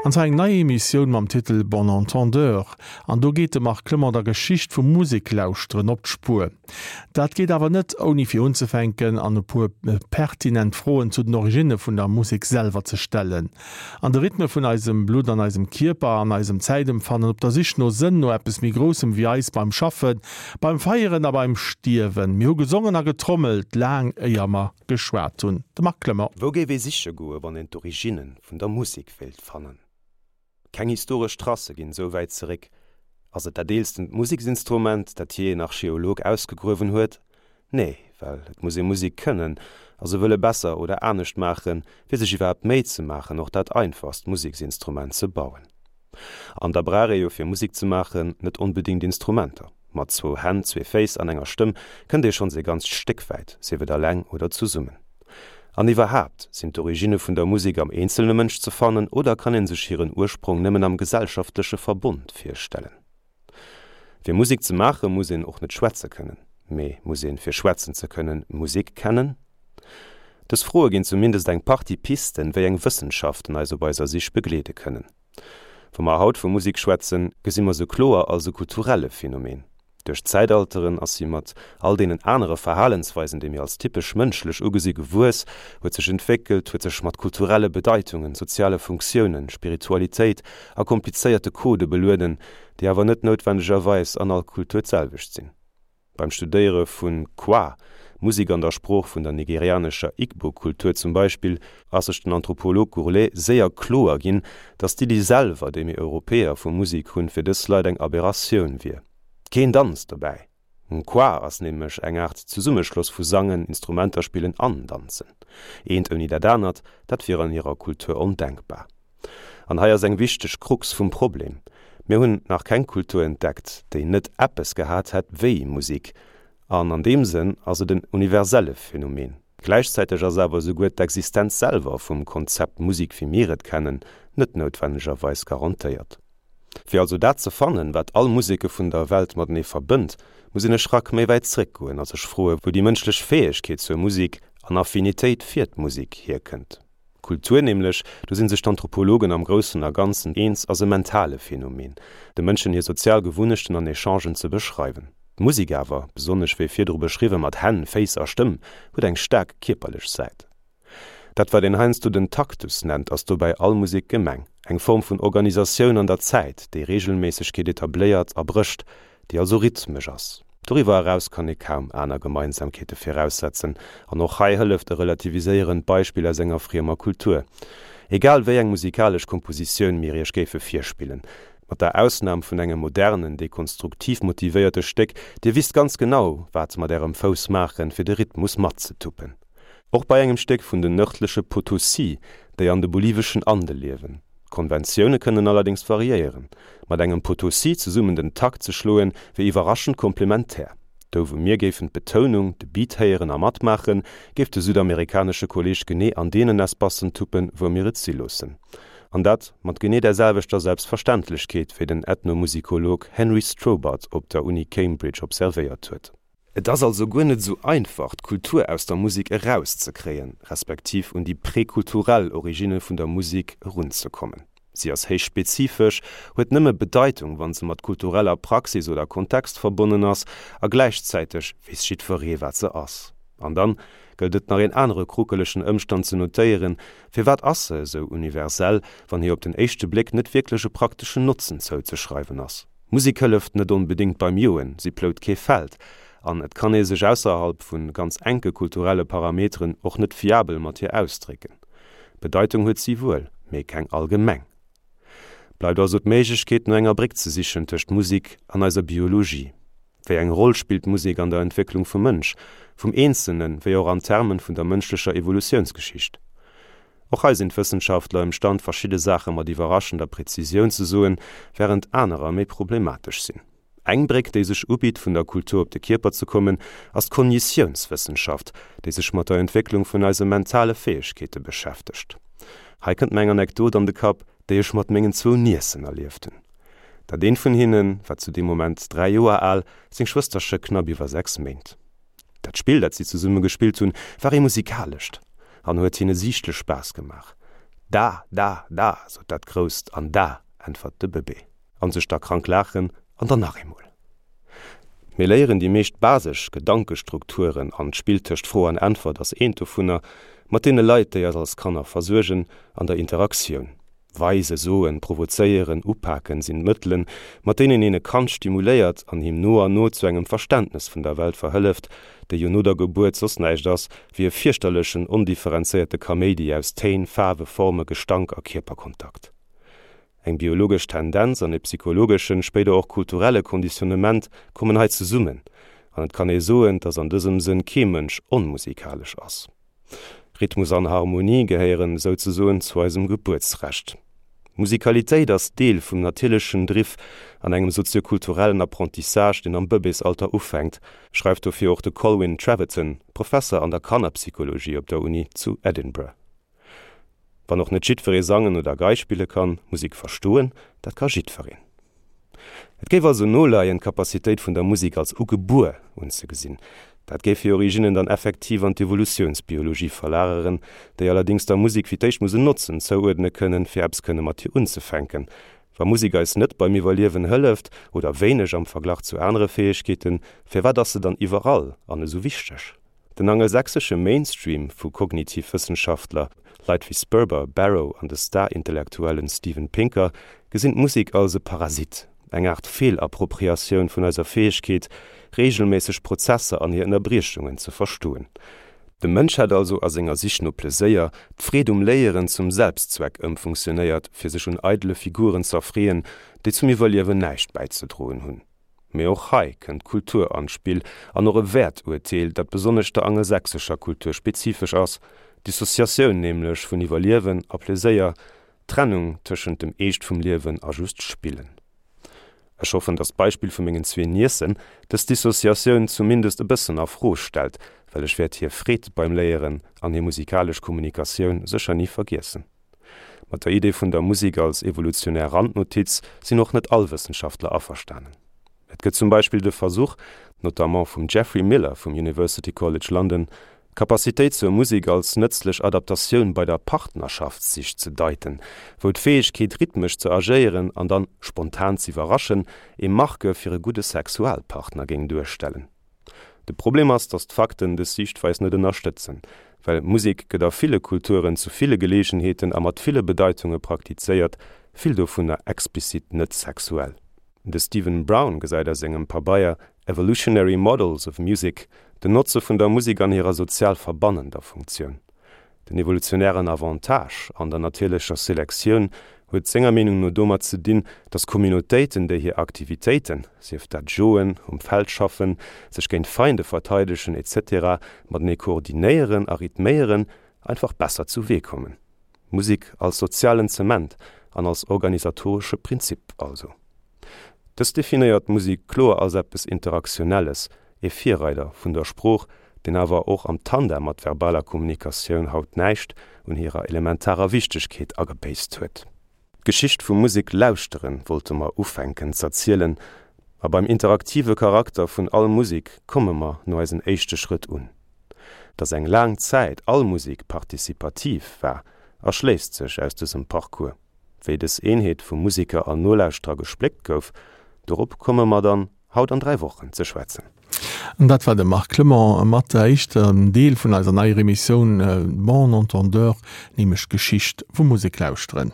An zwar eng nei Emissioun mam Titel Bon Entendeur. An do geet de Marc Clement der Geschicht vum Museklauschteren op d'Spuer. Dat geet awer net, ouni fir unzefänken an e puer pertinent Froen zu den Originne vun der Musek selwer ze stellen. An de Rhythme vun eisem Blutt an eisem Kierper an eisem Zäitempfannen, op der Sich no Sënn, no eppes méi Groussem wéi eis, beim Schaffen, beim Feieren a beim Stierwen. Mir hu gesongen a getrommelt, laang éier mer geschwat hunn. De Marc Clement. Wou géif ee siche goe wann een d'Originne vun der Musek wéilt fannen? Keng historesch Tracë ginn esou wäit zeréck. Ass et dat eelstent Museksinstrument, dat jee en Archeolog ausgegruewen huet? Nee, well et muss ee Musek kënnen a se wëlle besser oder anescht maachen, fir sech iwwerhaapt d'Méi ze maachen, och dat einfachst Museksinstrument ze bauen. An da brauch ee jo fir Musek ze maachen net onbedéngt Instrumenter. Mat zwou Hänn, zwee Féiss an enger Stëmm kënnt ee schonns ee ganzt Stéck wäit, sief et alleng oder zesummen. An iwwerhaapt, sinn d'Originne vun der Musek am eenzelne Mënsch ze fannen oder kann ee sech hiren Ursprong nëmmen am gesellschaftleche Verbond virstellen? Fir Musek ze maache muss een och net schwätze kënnen. Mee muss een, fir schwätzen ze kënnen, Musek kennen? Dës Froe ginn zumindest eng Partie Pisten, wéi eng Wëssenschaften eis op eiser Sich begleede kënnen. Wa mer haut vu Musek schwätzen, gesi mer se kloer als e kulturelle Phänomen. Duerch d'Zäitalteren ass si mat all deenen anere Verhalensweisen, déi mir als typesch mënschlech ugesi gewuess, huet sech entwéckelt, huet sech mat kulturelle Bedeitungen, soziale Funktiounen, Spiritualitéit a komplizéierte Codë belueden, déi awer net noutwendegerweis an all Kultur d'selwecht sinn. Beim Studéiere vun Kwa, Musek an der Sprooch vun der nigerianescher Igbo-Kultur zum Beispill, ass sech den Anthropolog Gourlet séier kloer ginn, datt d'Iddi selwer, déi mir Europäer vu Musek hunn, fir dës Leit eng Aberratioun wier. Keen Danz dobäi! Kwa ass nämlech eng Aart Zesummeschloss vu Sangen, Instrumenter spillen an Danzen. Eent ouni dat anert, dat wier an hirer Kultur ondenkbar. An hei ass eng wichteg Krux vum Problem, Mir hunn nach keng Kultur entdeckt, déi net eppes gehat hätt wéi Musik. An an deem Sënn ass et en universelle Phänomen. Gläichzäiteg ass awer esouguer d'Existenz selwer vum Konzept Musik wéi mir et kennen net noutwennegerweis garantéiert. Fir also dat ze fannen, wat all Museke vun der Welt matenee verbënnt, muss een e Schrack méi wäit zréckgoen a sech froe wou déi mënschlech Fäegkeet zur Musik an Affinitéit fir d'Musik hierkënnt. Kultur nämlech, do si sech d'Anthropologen am Groussen a Ganzen eens, ass e mentale Phänomen, de Mënschen hir sozial Gewunnechten an Echangen ze beschreiwen. D'Musek awer, besonnesch wéi virdru beschriwwe mat Hänn, Féiss a Stëmm, huet eng staark kierperlech Säit. Dat wat een heiansdo den Taktus nennt, ass dobäi all Musek gemeng, eng Form vun Organisatioun an der Zäit, déi Reegelméissegkeet etabléiert a brécht, déi also rhythmesch ass. Doriwwer eraus kann ee kaum aner Gemeinsamkeete viraussetzen, an och hei hëlleft e relativiséierend Beispill aus enger friemer Kultur. Egal wéi eng musikalesch Kompositioun mir iech géife virspillen, mat der Ausnam vun engem modernen, dekonstruktiv motivéierte Stéck, dir wisst ganz genau, wat mat ärem Fouss maachen, fir de Rhythmus matzetuppen. Och bei engem Stéck vun den nërdleche Potosí, déi an de boliveschen Ande liewen. D'Konventioune kënnen allerdéngs variéieren. Mat engem Potosí zesummen den Takt ze schloen, wier iwwerraschend komplementär. Do wou mir géifen d'Betounung, de Beat héieren a matmaachen, géif de südamerikanesche Kolleeg genee an deenen Espacen tuppen, wou mir et si loossen. An dat mat genee där selwechter Selbstverständlechkeet, wéi den Ethnomusikolog Henry Strobhart op der Uni Cambridge observéiert huet. Et ass also guer net esou einfach, d'Kultur aus der Musek erauszekréien, respektiv un déi prekulturell Originne vun der Musek erunzekommen. Si ass héich spezifesch, huet nëmme Bedeitung, wa se mat kultureller Praxis oder Kontext verbonnen ass, a gläichzäiteg weess jiddweree, wat se ass. An dann gëllt et nach een anere kruckelegen Ëmstand ze notéieren, Firwat ass se esou universell, wann hir op den éischte Bléck net wierklech e prakteschen Notzen zouzeschreiwen ass? Musek hëlleft net onbedéngt beim Joen, si plout kee Feld an et kann ee sech ausserhalb vu ganz enke kulturelle Parameteren och net fiabel mat hir ausdrécken. Bedeitung huet si wuel, mee keng allgemeng. Bleift also d'Méiglechkeet no enger Bréck ze sichen tëscht Musek an eiser Biologie. Wéi eng Roll spillt d'Musek an der Entwécklung vum Mënsch, vum Eenzelnen, wéi och an Termen vun der mënschlecher Evolutiounsgeschicht? Och hei sinn d'Wëssenschaftler ëmstand verschidde Saache mat iwwerraschender Präzisioun ze soen, wärend anerer méi problematesch sinn. Eng Bréck, déi sech ubitt vun der Kultur op de Kierper ze kommen, ass d'Kognitiounswëssenschaft, déi sech mat der Entwécklung vun eise mentale Fäegkeete beschäftegt. Hei kënnt mer eng Anekdot an de Kapp, déi ech mat mengen zwou Niessen erlieft hunn. Dat eent vun hinne war zu deem Moment 3 Joer al, seng Schwësterche knapp iwwer 6 Méint. Dat Spill, dat si zesumme gespillt hunn, war ee musikalescht an huet hinne siichtlech Spaass gemaach. Da, da, da, sot dat Grousst, an da, äntwert de Bëbee. An sech da krank laachen, an dann nach eemol. Mir léieren déi meescht basesch Gedankestrukturen, an d'Spill tëscht Fro an Äntwert ass eent dovunner, mat deene Leit, déi eis als Kanner versuergen, an der Interaktioun. Weisen, soen, provozéieren, upaken sinn d'Mëttelen, mat deenen een e Kand stimuléiert an him no an no zu engem Verständnes vun der Welt verhëlleft, déi jo no der Gebuert soss näischt ass, wéi e fierchterlechen, ondifferenzéierte Kaméidi aus Téin, Faarwe, Forme, Gestank a Kierperkontakt. Eng biologesch Tendenz an e psychologeschen, spéider och kulturelle Konditionnement kommen hei zesummen, an et kann ee soen, dass an dësem Sënn kee Mënsch onmusikalesch ass. Rhythmus an Harmonie gehéieren souzesoen zu eisem Gebuertsrecht. Musikalitéit ass Deel vum natierlechen Driff an engem soziokulturellen Apprentissage, deen am Bëbeesalter ufänkt, schreift dofir och de Colwyn Treverton, Professer an der Kannerpsychologie op der Uni zu Edinburgh. Wann och net jiddweree sangen oder Gei spille kann, Musek verstoen, dat ka jiddwereen. Et géif also noleien, d'Capacitéit vun der Musek als ugebuer unzegesinn. Dat géif hir Originnen dann effektiv an d'Evolutiounsbiologie verlageren, déi allerdéngs der Musek fir d'éischt muss en Notzen zouuerdne kënnen, fir eppes kënne mat hir unzefänken. Wa Musek eis net beim Iwwerliewen hëlleft, oder wéineg am Verglach zu anere Fäegkeeten, firwat ass se dann iwwerall an esou wichteg? Den angelsächsesche Mainstream vu Kognitivwëssenschaftler, Leit wéi Sperber, Barrow an de Star-Intellektuellen Steven Pinker, gesinn d'Musek als e Parasit, eng Aart Feelappropriatioun vun eiser Fäegkeet, reegelméisseg Prozesser an hir Ënnerbriechungen ze verstoen. De Mënsch hätt also a senger Sich no Pleséier d'Freed um Léieren zum Selbstzweck ëmfunktionéiert, fir sech un eidele Figuren z'erfreeën, déi zum Iwwerliewen näischt bäizedroen hunn. Mee och hei kënnt d'Kultur an d'Spill an och e Wäerturteel, dat besonnesch der angelsächsescher Kultur spezifesch ass, d'Dissociatioun nämlech vun Iwwerliewen a Pleséier, d'Trennung tëschent dem Eescht vum Liewen a just Spillen. Ech hoffen, datt d'Beispill vu mengen zwee Niecen dës Dissociatioun zumindest e bëssen a Fro stellt, well ech wäert hir Freed beim Léieren an hir musikalesch Kommunikatioun sécher ni vergiessen. Mat der Idee vun der Musik als evolutionär Randnotiz sinn och net all Wëssenschaftler averstanen. Et gëtt zum Beispill de Versuch, notamment vum Geoffrey Miller vum University College London, d'Capacitéit zur Musik als nëtzlech Adaptatioun bei der Partnerschaftssich ze deiten, wou d'Fäegkeet rhythmesch ze agéieren an dann spontan z'iwwerraschen ee Marqueur fir e gudde Sexualpartner géing duerstellen. De Problem ass, datt d'Fakten dës Siichtweis net ënnerstëtzen, well Musek gëtt a ville Kulturen zu ville Geleegenheeten a mat ville Bedeitunge praktizéiert, vill dovunner explizit net sexuell. De Steven Brown gesäit a sengem Pabeier Evolutionary Models of Music den Notze vun der Musek an hirer sozial verbannender Funktioun. Den evolutionären Avantage an der natierlecher Selektioun huet senger Meenung no domat ze dinn, datt Communautéiten, déi hir Aktivitéiten, sief dat joen, um Feld schaffen, sech géint Feinde verteidegen, etc. Matenee koordinéieren a rhythméieren, einfach besser zu Wee kommen. Musek als sozialen Zement an als organisatoresche Prinzip also. Dës definéiert d'Musek kloer als eppes Interaktionelles, ee Virreider vun der Sprooch, deen awer och am Tandem mat verbaler Kommunikatioun haut näischt un hirer elementarer Wichtegkeet agebéisst huet. D'Geschicht vum Musek lauschteren wollte mer ufänken z'erzielen, a beim interaktive Charakter vun all Musek komme mer no eisen éischte Schrëtt un. Dass eng laang Zäit all Musek participativ war, erschléisst sech aus dësem Parcours. Wéi dës Eenheet vu Museker an Nolauschterer gespléckt gouf, dorop komme mer dann haut an 3 Wochen ze schwätzen. An dat war de Marc Clement mat der éischten Deel vun eiser neier Emissioun Bon entendeur, nämlech d'Geschicht vum Museklauschteren.